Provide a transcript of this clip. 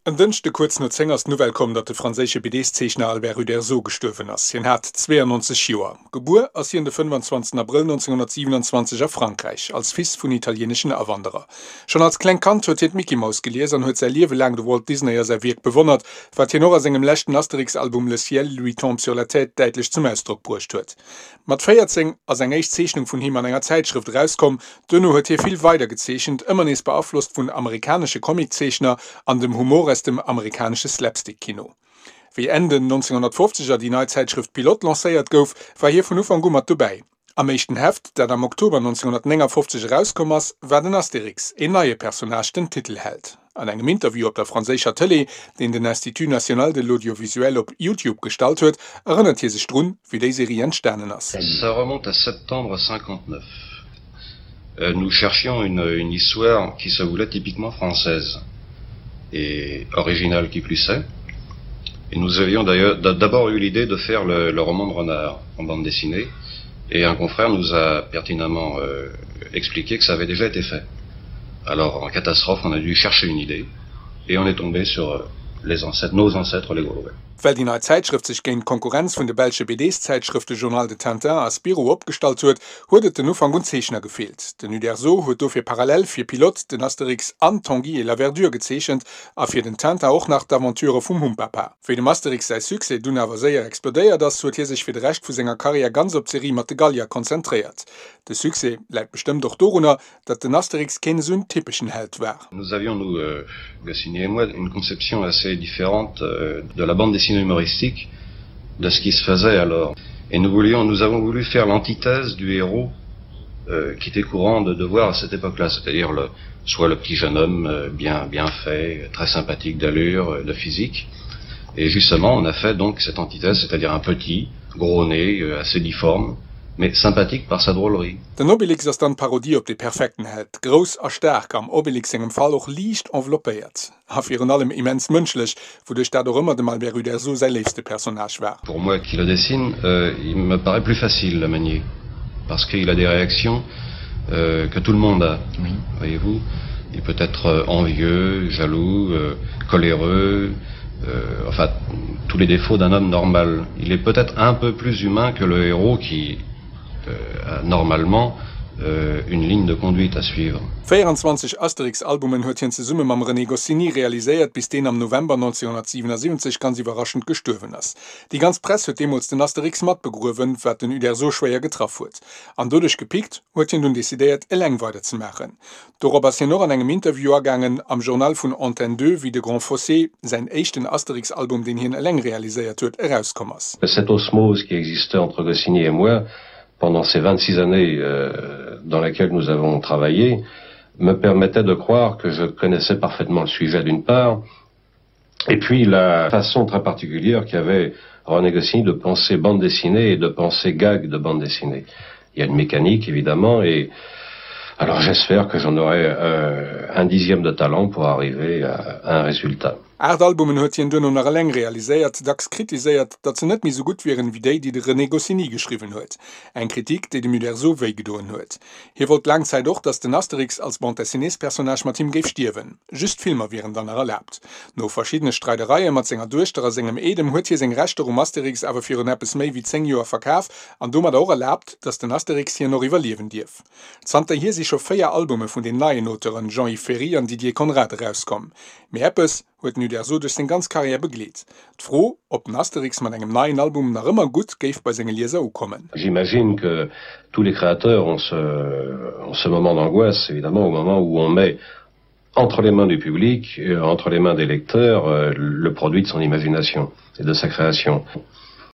En Dënschde kuerz no 10 ass d'Nouvelle komm, datt de franséische BDs-Zeechner Albert Uderzo gestuerwen ass. Hien hat 92 Joer. Gebuer ass hien de 25 Abrëll 1927 a Frankräich, als Fils vun italieeneschen Awanderer. Schonn als klengt Kand huet hien d'Mickey Mouse gelies an huet säi Liewe laang de Walt Disney a säi Wierk bewonnert, wat hien och a sengem leschten Asterix-Album Le ciel lui tombe sur la tête däitlech zum Ausdrock bruecht huet. Mat 14 ass eng éischt Zeechnung vun him an enger Zäitschrëft erauskomm. Duerno huet hie vill weider gezeechent, ëmmer nees beaflosst vun amerikanesche Comiczeechner an dem Humor aus dem amerikanesche Slapstick-Kino. Wéi Enn den 1950er déi nei Zäitschrëft Pilote lancéiert gouf, war hie vun Ufank u mat dobäi. Am éischten Heft, dat am Oktober 1959 erauskomm ass, war den Astérix, een neie Personnage, den Titelheld. An engem Interview op der franséischer Tëlee, deen den Institut national de l'audiovisuel op YouTube gestallt huet, erënnert hie sech drun, wéi déi Serie entstanen ass. Ça remonte à septembre 59. Nous cherchions une, une histoire qui se voulait typiquement française et originale qui plus est. Et nous avions d'ailleurs d'abord eu l'idée de faire le, le roman de renard en bande dessinée et un confrère nous a pertinemment euh, expliqué que ça avait déjà été fait. Alors en catastrophe, on a dû chercher une idée et on est tombé sur euh, les ancêtres, nos ancêtres les Gaulois. Well déi nei Zäitschrëft sech géint d'Konkurrenz vun de belsche BDs-Zäitschrëfte Journal de Tintin a Spirou opgestallt huet, huet et den Ufank un Zeechner gefeelt. Den Uderzo huet dofir parallel fir Pilote, den Asterix an Tanguy et la Verdure gezeechent a fir den Tintin och nach d'Aventurë vum Humpapa. Wéi dem Asterix säi Succès dunn awer séier explodéiert ass, huet hie sech fir de Rescht vu senger Karriär ganz op d'Serie mat de Gallier konzentréiert. De Succès läit bestëmmt och dorunner, datt den Asterix keen esou en typeschen Held war. Nous avions nous euh, Goscinny et moi une conception assez différente euh, de la bande dessinée humoristique de ce qui se faisait alors et nous voulions nous avons voulu faire l'antithèse du héros euh, qui était courant de, de voir à cette époque là c'est à dire le soit le petit jeune homme euh, bien bien fait très sympathique d'allure euh, de physique et justement on a fait donc cette antithèse c'est à dire un petit gros nez euh, assez difforme mais sympathique par sa drôlerie. Den Obélix ass dann d'Parodie op dee perfekten Held, grouss a staark, am Obélix sengem Fall och liicht enveloppéiert a virun allem immens mënschlech, wouduerch dat och ëmmer dem Albert Uderzo säi léifste Personnage war. Pour moi qui le dessine, il me paraît plus facile à manier, parce qu'il a des réactions que tout le monde a, voyez-vous, il peut être envieux, jaloux, coléreux, enfin tous les défauts d'un homme normal. Il est peut-être un peu plus humain que le héros qui euh, a normalement euh, une ligne de conduite à suivre. 24 Asterix-Albumen huet hien zesumme mam René Goscinny realiséiert, bis deen am November 1977 ganz iwwerraschend gestuerwen ass. Déi ganz Press huet deemools den Asterix mat begruewen, wat den Uderzo schwéier getraff huet. An doduerch gepickt, huet hien dunn decidéiert, eleng weiderzemaachen. Dorop ass hien och an engem Interview agaangen am Journal vun Antenne 2, wéi De Grand Fossé, säin éischten Asterix-Album, deen hien eleng realiséiert huet, erauskomm ass. Cette osmose qui existait entre Goscinny et moi pendant ces 26 années dans lesquelles nous avons travaillé me permettait de croire que je connaissais parfaitement le sujet d'une part et puis la façon très particulière qu'avait René Goscinny de penser bande dessinée et de penser gag de bande dessinée. Il y a une mécanique évidemment et alors j'espère que j'en aurai euh, un dixième de talent pour arriver à, à un résultat. Aart Albumen huet hien duerno nach eleng realiséiert, dacks kritiséiert, datt se net méi sou gutt wieren, wéi déi, déi de René Goscinny geschriwwen huet. Eng Kritik, déi dem Uderzo wéi gedoen huet. Hie wollt laang Zäit och, datt den Asterix als Bande-dessinées-Personnage mat him géif stierwen. Just Filmer wieren dann nach erlaabt. No verschiddene Streidereie mat senger Duechter a sengem Eedem huet hie seng Rechter um Asterix awer virun eppes méi wéi 10 Joer verkaf an domadder och erlaabt, datt den Asterix hien och iwwerliewen dierf. Zanterhier si scho 4 Albume vun den neien Auteuren Jean-Yves Ferri an Didier Conrad erauskomm. Mee eppes huet den Uderzo duerch seng ganz Karriär begleet, d'Fro, ob den Asterix mat engem neien Album nach ëmmer gutt géif bei senge Lieser ukommen. J'imagine que tous les créateurs ont ce, ont ce moment d'angoisse, évidemment, au moment où on met entre les mains du public, entre les mains des lecteurs, le produit de son imagination et de sa création.